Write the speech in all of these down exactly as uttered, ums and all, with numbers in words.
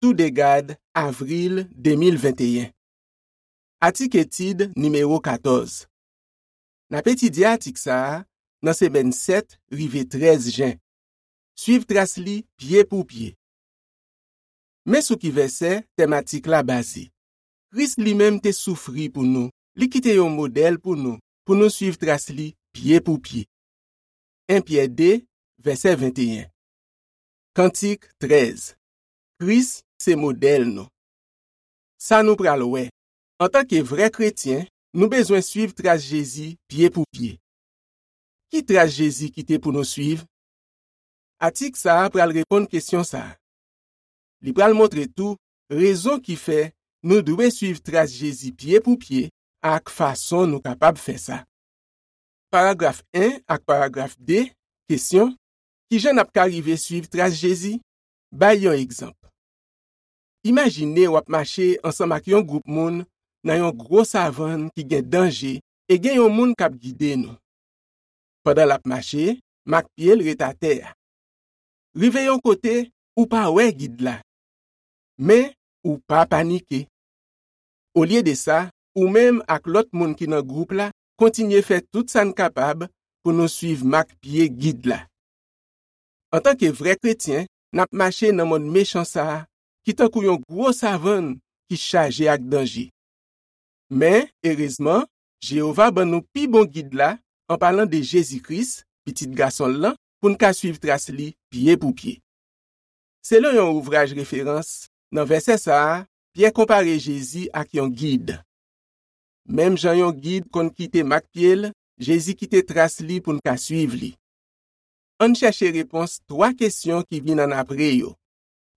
Toudegad, avril de mil venteyen. Atik etid nimewo katòz. N ap etidye atik sa a nan semèn sèt rive trèz jen. Suiv tras li pye pou pye. Men sou ki vèsè tèm atik la baze. Kris li menm te soufri pou nou, li kite yon modèl pou nou, pou nou suiv tras li pye pou pye. En Pyè de, vèsè venteyen. Kantik trèz. Kris se modèl nou. Sa nou pral wè. Antanke vrè kretyen, nou bezwen suiv tras Jezi pye pou pye. Ki tras Jezi kite pou nou suiv? Atik sa a pral reponn kesyon sa a. Li pral montre tou rezon ki fè nou dwe suiv tras Jezi pye pou pye ak fason nou kapab fè sa. Paragraf en ak paragraf de, kesyon, ki jan n ap ka rive suiv tras Jezi? Bay yon egzanp. Imajine w ap mache ansanm ak yon gwoup moun nan yon gwo savann ki gen danje e gen yon moun k ap gide nou. Pandan l ap mache, mak pye l ret atè a. Rive yon kote, ou pa wè gid la. Men, ou pa panike. Olye de sa, ou menm ak lòt moun ki nan gwoup la kontinye fè tout sa n kapab pou nou suiv mak pye gid la. Antanke vrè kretyen, n ap mache nan monn mechan sa a, ki tankou yon gwo savann ki chaje ak danje. Men, erezman, Jewova ban nou pi bon gid la, an palan de Jezi Kris, Pitit Gason l lan, pou n ka suiv tras li pye pou pye. Selon yon ouvraj referans, nan vèsè sa a, Pyè konpare Jezi ak yon gid. Menm jan yon gid konn kite mak pye l, Jezi kite tras li pou n ka suiv li. Ann chèche repons twa kesyon ki vin annapre yo.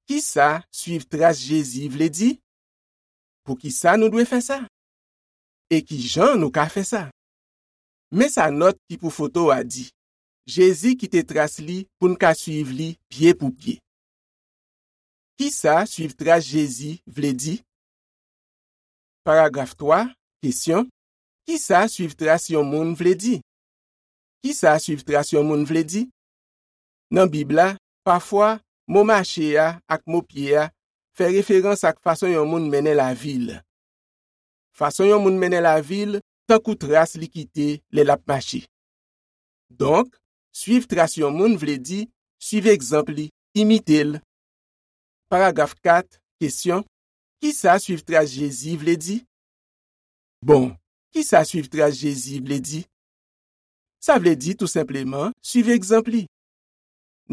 Ki sa suiv tras Jezi vle di? Poukisa nou dwe fè sa? E ki jan nou ka fè sa? Men sa nòt ki pou foto a di. Jezi kite tras li pou n ka suiv li pye pou pye. Ki sa suiv tras Jezi vle di? Paragraf twa, kesyon, ki sa suiv tras yon moun vle di? Ki sa suiv tras yon moun vle di? Nan Bib la, pafwa, mo mache a ak mo pye a fè referans ak fason yon moun mennen lavi l. Fason yon moun mennen lavi l tankou tras li kite lè l ap mache. Donk, suiv tras yon moun vle di suiv egzanp li, imite l. Paragraf kat, kesyon, ki sa suiv tras Jezi vle di? Bon, ki sa suiv tras Jezi vle di? Sa vle di tou senpleman suiv egzanp li.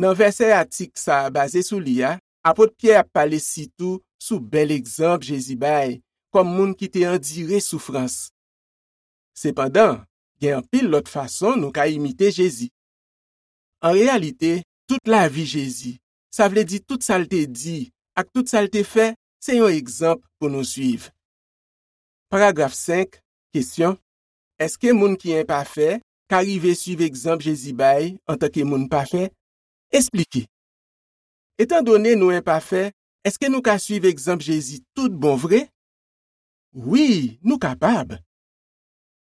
Nan vèsè atik sa a baze sou li a, apot Pyè ap pale sitou sou bèl egzanp Jezi bay kòm moun ki te andire soufrans. Sepandan, gen anpil lòt fason nou ka imite Jezi. An reyalite, tout lavi Jezi, sa vle di tout sa l te di ak tout sa l te fè, se yon egzanp pou nou suiv. Paragraf senk, kesyon, èske moun ki enpafè ka rive suiv egzanp Jezi bay antanke moun pafè? Esplike. Etandone nou enpafè, èske nou ka suiv egzanp Jezi tout bon vre? Wi, nou kapab.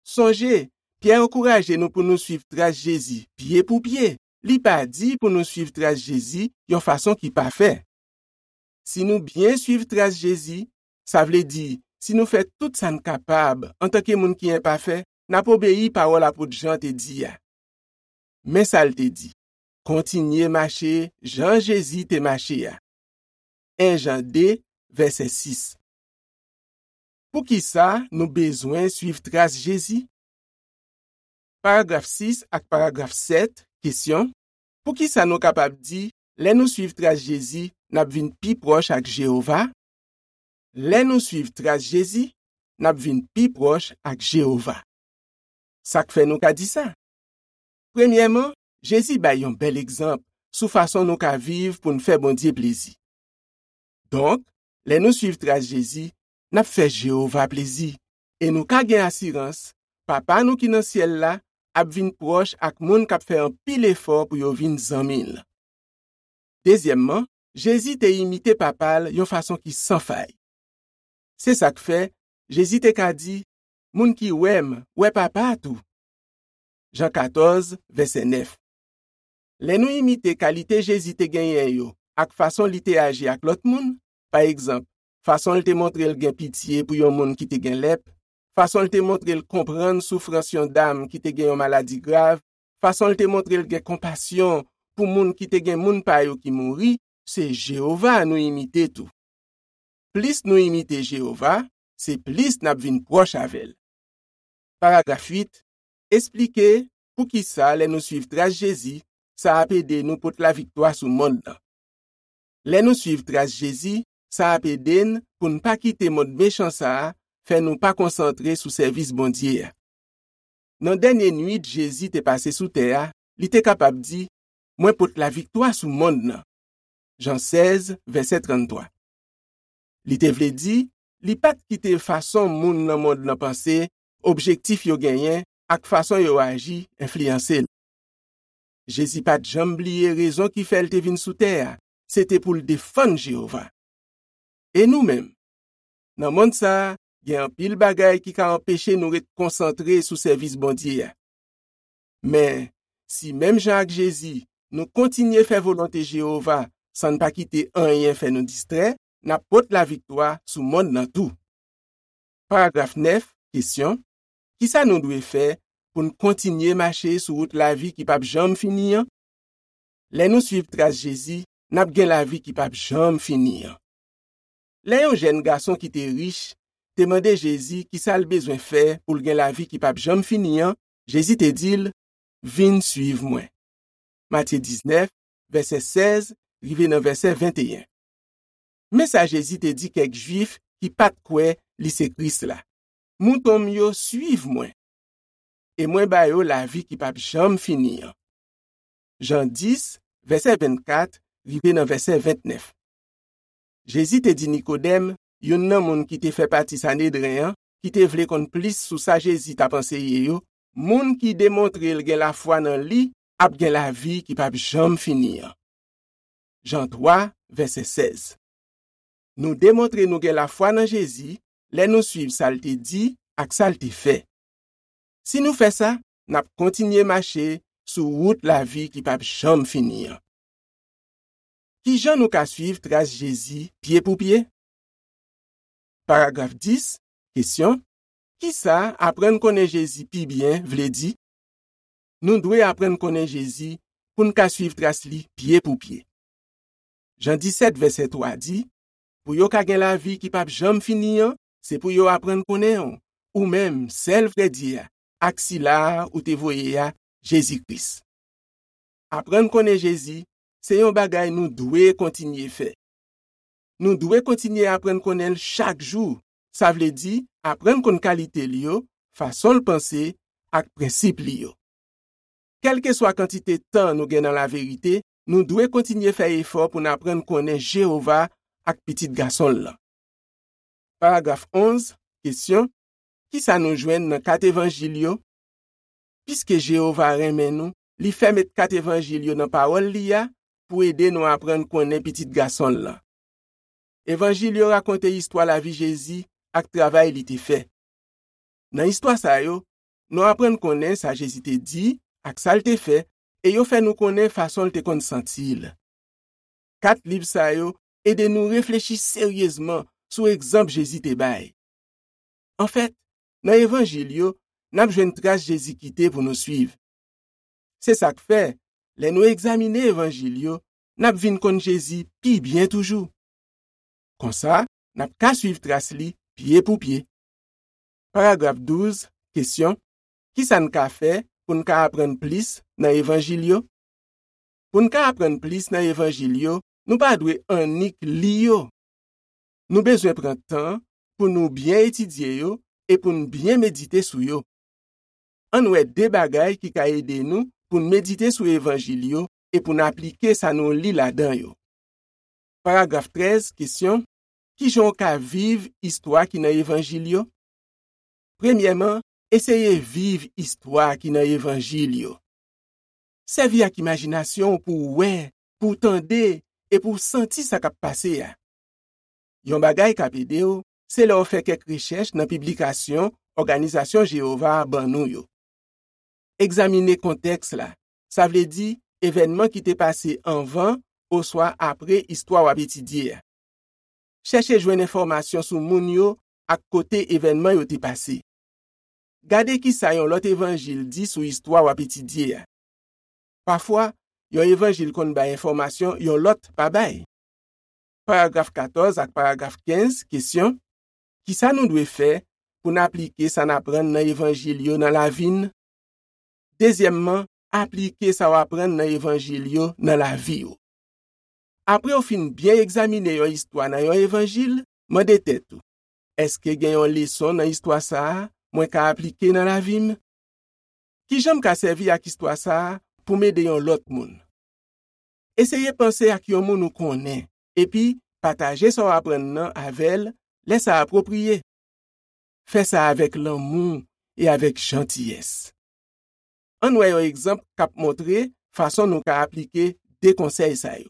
Sonje, Pyè ankouraje nou pou nou suiv tras Jezi pye pou pye. Li pa di pou nou suiv tras Jezi yon fason ki pafè. Si nou byen suiv tras Jezi, sa vle di, si nou fè tout sa n kapab antanke moun ki enpafè, n ap obeyi pawòl apot Jan te di a. Men sa l te di, kontinye mache jan Jezi te mache a. En Jan de, vèsè sis. Poukisa nou bezwen suiv tras Jezi? Paragraf sis ak paragraf sèt, kesyon, poukisa nou kapab di, lè nou suiv tras Jezi, n ap vin pi pwòch ak Jewova? Lè nou suiv tras Jezi, n ap vin pi pwòch ak Jewova. Sa k fè nou ka di sa? Premyèman, Jezi bay yon bèl egzanp sou fason nou ka viv pou n fè Bondye plezi. Donk, lè nou suiv tras Jezi, n ap fè Jewova plezi, e nou ka gen asirans Papa nou ki nan syèl la ap vin pwòch ak moun k ap fè anpil efò pou yo vin zanmi l. Dezyèmman, Jezi te imite Papa l yon fason ki san fay. Se sa k fè, Jezi te ka di, moun ki wè m, wè Papa a tou. Jan katòz, vèsè nèf. Lè nou imite kalite Jezi te genyen yo ak fason li te aji ak lòt moun, Pa egzanp, fason l te montre l gen pitye pou yon moun ki te gen lèp, fason l te montre l konprann soufrans yon dam ki te gen yon maladi grav, fason l te montre l gen konpasyon pou moun ki te gen moun pa yo ki mouri, se Jewova nou imite tou. Plis nou imite Jewova, se plis n ap vin pwòch avè l. Paragraf uit, esplike poukisa lè nou suiv tras Jezi, sa ap ede nou pot laviktwa sou monn nan. Lè nou suiv tras Jezi, sa ap ede n pou n pa kite mond mechan sa a fè nou pa konsantre sou sèvis Bondye a. Nan dènye nuit Jezi te pase sou tè a, li te kapab di, "Mwen pot laviktwa sou monn nan." Jan sèz, vèsè tranntwa. Li te vle di, li pa t kite fason moun nan mond nan panse, objektif yo genyen, ak fason yo aji enfliyanse l. Jezi pa t janm bliye rezon ki fè l te vin sou tè a, se te pou l defann Jewova. E nou menm? Nan monn sa a, gen anpil bagay ki ka anpeche nou ret konsantre sou sèvis Bondye a. Men, si menm jan ak Jezi, nou kontinye fè volonte Jewova san n pa kite anyen fè nou distrè, n ap pot laviktwa sou monn nan tou. Paragraf nèf, kesyon, kisa nou dwe fè pou n kontinye mache sou wout lavi ki p ap janm fini an? Lè nou suiv tras Jezi, n ap gen lavi ki p ap janm fini an. Lè yon jèn gason ki te rich te mande Jezi kisa l bezwen fè pou l gen lavi ki p ap janm fini an, Jezi te di l, "Vin suiv mwen." Matye diznèf, vèsè sèz, rive nan vèsè venteyen. Men sa Jezi te di kèk Jwif ki pa t kwè li se Kris la, "Mouton m yo suiv mwen, e mwen ba yo lavi ki p ap janm fini an." Jan dis, vèsè vennkat, rive nan vèsè ventnèf. Jezi te di Nikodèm, youn nan moun ki te fè pati Sanedren an, ki te vle konn plis sou sa Jezi t ap anseye yo, "Moun ki demontre l gen lafwa nan li ap gen lavi ki p ap janm fini an." Jan twa, vèsè sèz. Nou demontre nou gen lafwa nan Jezi lè nou suiv sa l te di ak sa l te fè. Si nou fè sa, n ap kontinye mache sou wout lavi ki p ap janm fini an. Ki jan nou ka suiv tras Jezi pye pou pye? Paragraf dis, kesyon, kisa aprann konnen Jezi pi byen vle di? Nou dwe aprann konnen Jezi pou n ka suiv tras li pye pou pye. Jan disèt, vèsè twa di, "Pou yo ka gen lavi ki p ap janm fini an, se pou yo aprann konnen w, ou menm, sèl vrè Dye a, ak sila a ou te voye a, Jezi Kris." Aprann konnen Jezi, se yon bagay nou dwe kontinye fè. Nou dwe kontinye aprann konnen l chak jou, sa vle di aprann konn kalite l yo, fason l panse, ak prensip li yo. Kèlkeswa kantite tan nou gen nan laverite, nou dwe kontinye fè efò pou n aprann konnen Jewova ak Pitit Gason l lan. Paragraf onz, kesyon, kisa nou jwenn nan kat evanjil yo? Piske Jewova renmen nou, li fè met kat evanjil yo nan pawòl li a pou ede nou aprann konnen Pitit Gason l lan. Evanjil yo rakonte istwa lavi Jezi ak travay li te fè. Nan istwa sa yo, nou aprann konnen sa Jezi te di ak sa l te fè, e yo fè nou konnen fason l te konn santi l. Kat liv sa yo ede nou reflechi seryezman sou egzanp Jezi te bay. Anfèt, nan evanjil yo, n ap jwenn tras Jezi kite pou nou suiv. Se sa k fè, lè nou egzamine evanjil yo, n ap vin konn Jezi pi byen toujou. Konsa, n ap ka suiv tras li pye pou pye. Paragraf douz, kesyon, kisa n ka fè pou n ka aprann plis nan evanjil yo? Pou n ka aprann plis nan evanjil yo, nou pa dwe annik li yo. Nou bezwen pran tan pou nou byen etidye yo e pou n byen medite sou yo. Ann wè de bagay ki ka ede nou pou n medite sou evanjil yo e pou n aplike sa nou li ladan yo. Paragraf trèz, kesyon, ki jan w ka viv istwa ki nan evanjil yo? Premyèman, eseye viv istwa ki nan evanjil yo. Sèvi ak imajinasyon w pou w wè, pou w tande e pou w santi sa k ap pase a. Yon bagay k ap ede w, se lè w fè kèk rechèch nan piblikasyon òganizasyon Jewova a ban nou yo. Egzamine kontèks la, sa vle di evènman ki te pase anvan oswa apre istwa w ap etidye a. Chèche jwenn enfòmasyon sou moun yo ak kote evènman yo te pase. Gade ki sa yon lòt evanjil di sou istwa w ap etidye a. Pafwa, yon evanjil konn bay enfòmasyon yon lòt pa bay. Paragraf katòz ak paragraf kenz, kesyon: ki sa nou dwe fè pou n aplike sa n aprann nan evanjil yo nan lavi n? Dezyèmman, aplike sa w aprann nan evanjil yo nan lavi w. Apre w fin byen egzamine yon istwa nan yon evanjil, mande tèt ou: èske gen yon leson nan istwa sa a mwen ka aplike nan lavi m? Ki jan m ka sèvi ak istwa sa a pou m ede yon lòt moun? Eseye panse ak yon moun ou konnen, epi pataje sa w aprann nan avè l lè sa apwopriye. Fè sa avèk lanmou e avèk jantiyès. Ann wè yon egzanp k ap montre fason nou ka aplike de konsèy sa yo.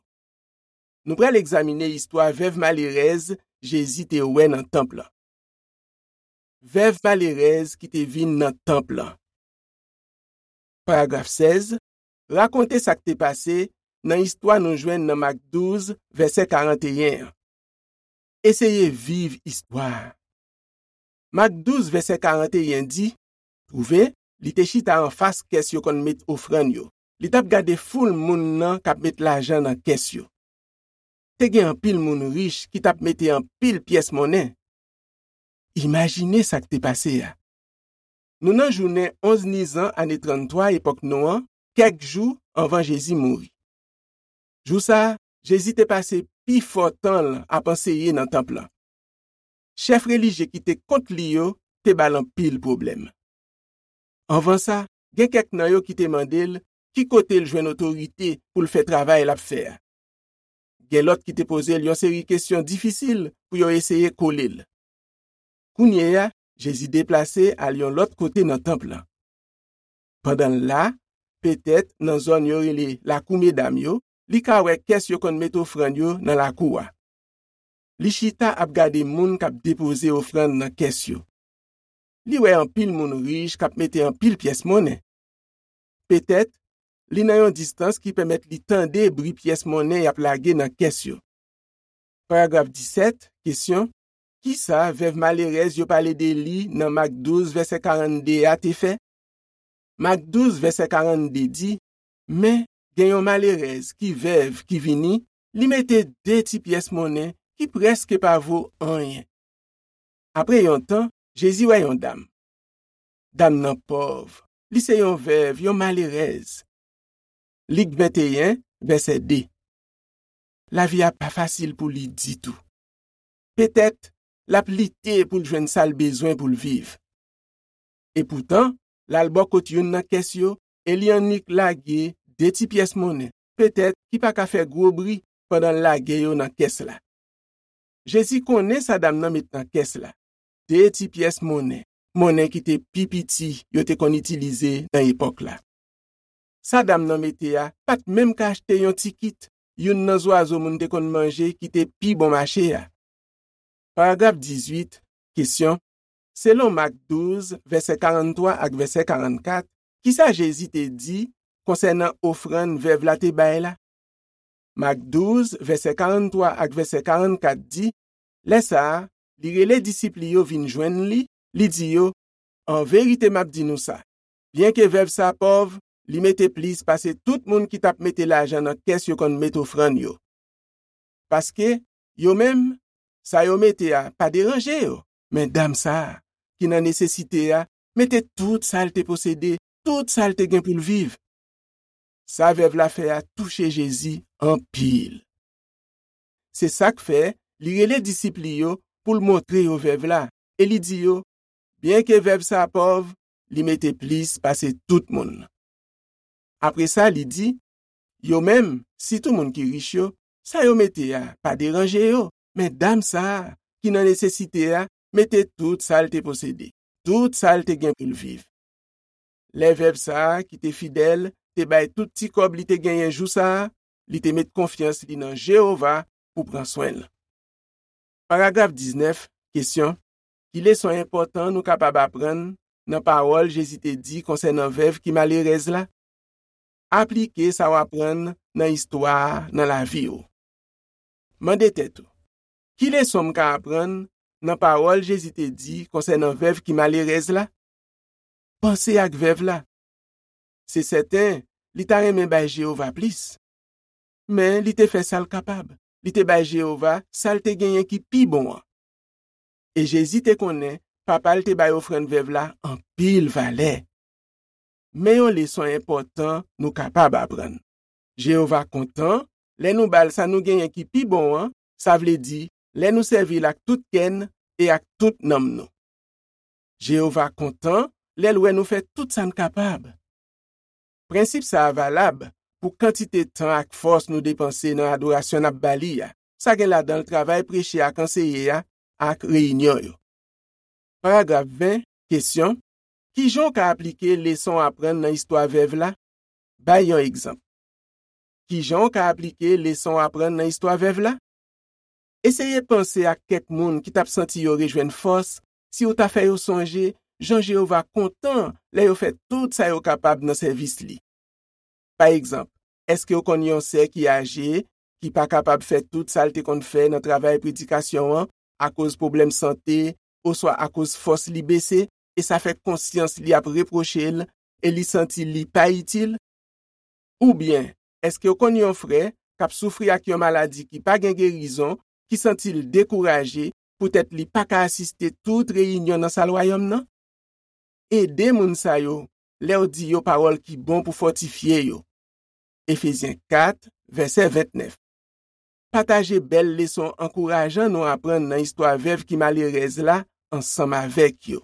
Nou pral egzamine istwa vèv malerèz Jezi te wè nan tanp lan. Vèv malerèz ki te vin nan tanp lan. Paragraf sèz, rakonte sa k te pase nan istwa nou jwenn nan Mak douz, vèsè karanteyen an. Eseye viv istwa a. Mak douz, vèsè karanteyen di: twouve, li te chita anfas kès yo konn met ofrann yo. Li t ap gade foul moun nan k ap met lajan nan kès yo. Te gen anpil moun rich ki t ap mete anpil pyès monnen. Imajine sa k te pase a. Nou nan jounen onz Nizan ane tranntwa epòk nou an, kèk jou anvan Jezi mouri. Jou sa a, Jezi te pase pifò tan l ap anseye nan tanp lan. Chèf relijye ki te kont li yo te ba l anpil pwoblèm. Anvan sa, gen kèk nan yo ki te mande l ki kote l jwenn otorite pou l fè travay l ap fè a. Gen lòt ki te poze l yon seri kesyon difisil pou yo eseye kole l. Kounye a, Jezi deplase al yon lòt kote nan tanp lan. Pandan l la, petèt nan zòn yo rele Lakou Medam yo, li ka wè kès yo konn met ofrann yo nan lakou a. Li chita ap gade moun k ap depoze ofrann nan kès yo. Li wè anpil moun rich k ap mete anpil pyès monnen. Petèt, li nan yon distans ki pèmèt li tande bri pyès monnen y ap lage nan kès yo. Paragraf disèt, kesyon: ki sa vèv malerèz yo pale de li nan Mak douz, vèsè karannde a te fè? Mak douz, vèsè karannde di: men, gen yon malerèz ki vèv ki vini, li mete de ti pyès monnen ki prèske pa vo anyen. Apre yon tan, Jezi wè yon dam. Dam nan pòv. Li se yon vèv, yon malerèz. Lik venteyen, vèsè de. Lavi a pa fasil pou li ditou. Petèt, l ap lite pou l jwenn sa l bezwen pou l viv. Epoutan, l al bò kot youn nan kès yo e li annik lage de ti pyès monnen, petèt ki pa ka fè gwo bri, pandan l lage yo nan kès la. Jezi konnen sa dam nan met nan kès la, de ti pyès monnen, monnen ki te pi piti yo te konn itilize nan epòk la. Sa dam nan mete a pa t menm ka achte yon ti kit youn nan zwazo moun te konn manje ki te pi bon mache a. Paragraf dizuit, kesyon: selon Mak douz, vèsè karannntwa ak vèsè karannkat, ki sa Jezi te di konsènan ofrann vèv la te bay la? Mak douz, vèsè karannntwa ak vèsè karannkat di: lè sa a, li rele disip li yo vin jwenn li, li di yo: an verite m ap di nou sa, byenke vèv sa a pòv, li mete plis pase tout moun ki t ap mete lajan nan kès yo konn met ofrann yo. Paske, yo menm, sa yo mete a pa deranje yo, men dam sa a, ki nan nesesite a, mete tout sa l te posede, tout sa l te gen pou l viv. Sa vèv la fè a touche Jezi anpil. Se sa k fè li rele disip li yo pou l montre yo vèv la, e li di yo: byenke vèv sa a pòv, li mete plis pase tout moun. Apre sa, li di: yo menm, sitou moun ki rich yo, sa yo mete a pa deranje yo, men dam sa a, ki nan nesesite a, mete tout sa l te posede, tout sa l te gen pou l viv. Lè vèv sa a, ki te fidèl, te bay tout ti kòb li te genyen jou sa a, li te met konfyans li nan Jewova pou pran swen l. Paragraf diznèf, kesyon: ki leson enpòtan nou kapab aprann nan pawòl Jezi te di konsènan vèv ki malerèz la? Aplike sa w aprann nan istwa a nan lavi w. Mande tèt ou: Ki leson m ka aprann nan pawòl Jezi te di konsènan vèv ki malerèz la? Panse ak vèv la. Se sèten, li ta renmen bay Jewova plis. Men li te fè sa l kapab. Li te bay Jewova sa l te genyen ki pi bon an. E Jezi te konnen Papa l te bay ofrann vèv la anpil valè. Men yon leson enpòtan nou kapab aprann. Jewova kontan lè nou ba l sa nou genyen ki pi bon an, sa vle di, lè nou sèvi l ak tout kè n e ak tout nanm nou. Jewova kontan lè l wè nou fè tout sa n kapab. Prensip sa a valab pou kantite tan ak fòs nou depanse nan adorasyon n ap ba li a. Sa gen ladan l travay preche ak anseye a ak reyinyon yo. Paragraf ven, kesyon: Ki jan w ka aplike leson w aprann nan istwa vèv la? Bay yon egzanp. Ki jan w ka aplike leson w aprann nan istwa vèv la? Eseye panse ak kèk moun ki t ap santi yo rejwenn fòs si w ta fè yo sonje jan Jewova kontan lè yo fè tout sa yo kapab nan sèvis li. Pa egzanp, èske w konn yon sè ki aje, ki pa kapab fè tout sa l te konn fè nan travay predikasyon an akoz pwoblèm sante oswa akoz fòs li bese, e sa fè konsyans li ap repwoche l e li santi li pa itil? Oubyen, èske w konn yon frè k ap soufri ak yon maladi ki pa gen gerizon, ki santi l dekouraje poutèt li pa ka asiste tout reyinyon nan Sal Wayòm nan? Ede moun sa yo lè w di yo pawòl ki bon pou fòtifye yo. Efezyen kat, vèsè vennèf. Pataje bèl leson ankourajan nou aprann nan istwa vèv ki malerèz la ansanm avèk yo.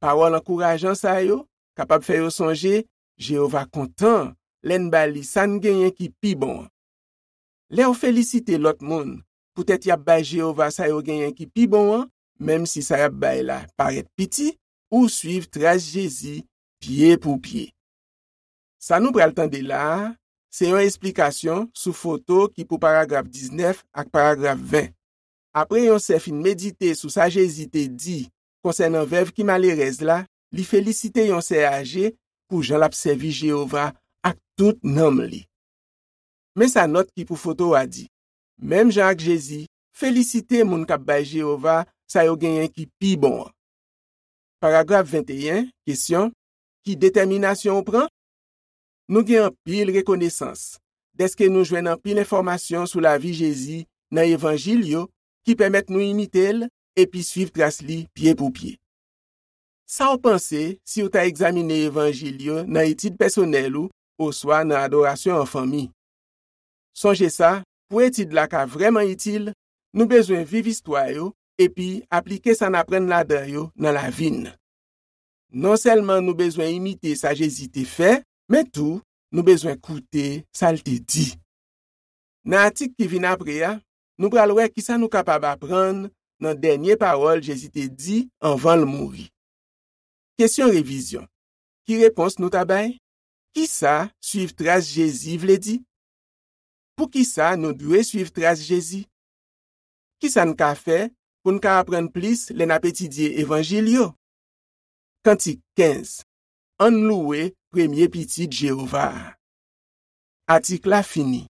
Pawòl ankourajan sa yo kapab fè yo sonje Jewova kontan lè n ba li sa n genyen ki pi bon an. Lè w felisite lòt moun poutèt y ap bay Jewova sa yo genyen ki pi bon an, menm si sa y ap bay la parèt piti, ou suiv tras Jezi pye pou pye. Sa nou pral tande la a, se yon esplikasyon sou foto ki pou paragraf diznèf ak paragraf ven. Apre yon sè fin medite sou sa Jezi te di konsènan vèv ki malerèz la, li felisite yon sè aje pou jan l ap sèvi Jewova ak tout nanm li. Men sa nòt ki pou foto a di: Menm jan ak Jezi, felisite moun k ap bay Jewova sa yo genyen ki pi bon an. Paragraf venteyen, kesyon: Ki detèminasyon w pran? Nou gen anpil rekonesans dèske nou jwenn anpil enfòmasyon sou lavi Jezi nan Evanjil yo ki pèmèt nou imite l epi suiv tras li pye pou pye. Sa w panse si w ta egzamine Evanjil yo nan etid pèsonèl ou oswa nan adorasyon an fanmi? Sonje sa, pou etid la ka vrèman itil, nou bezwen viv istwa yo epi aplike sa n aprann ladan yo nan lavi n. Non sèlman nou bezwen imite sa Jezi te fè, men tou, nou bezwen koute sa l te di. Nan atik ki vin apre a, nou pral wè ki sa nou kapab aprann nan dènye pawòl Jezi te di anvan l mouri. Kesyon revizyon. Ki repons nou ta bay? Ki sa suiv tras Jezi vle di? Poukisa nou dwe suiv tras Jezi? Ki sa n ka fè pou n ka aprann plis lè n ap etidye Evanjil yo? Kantik kenz. Ann louwe premye Pitit Jewova a. Atik la fini.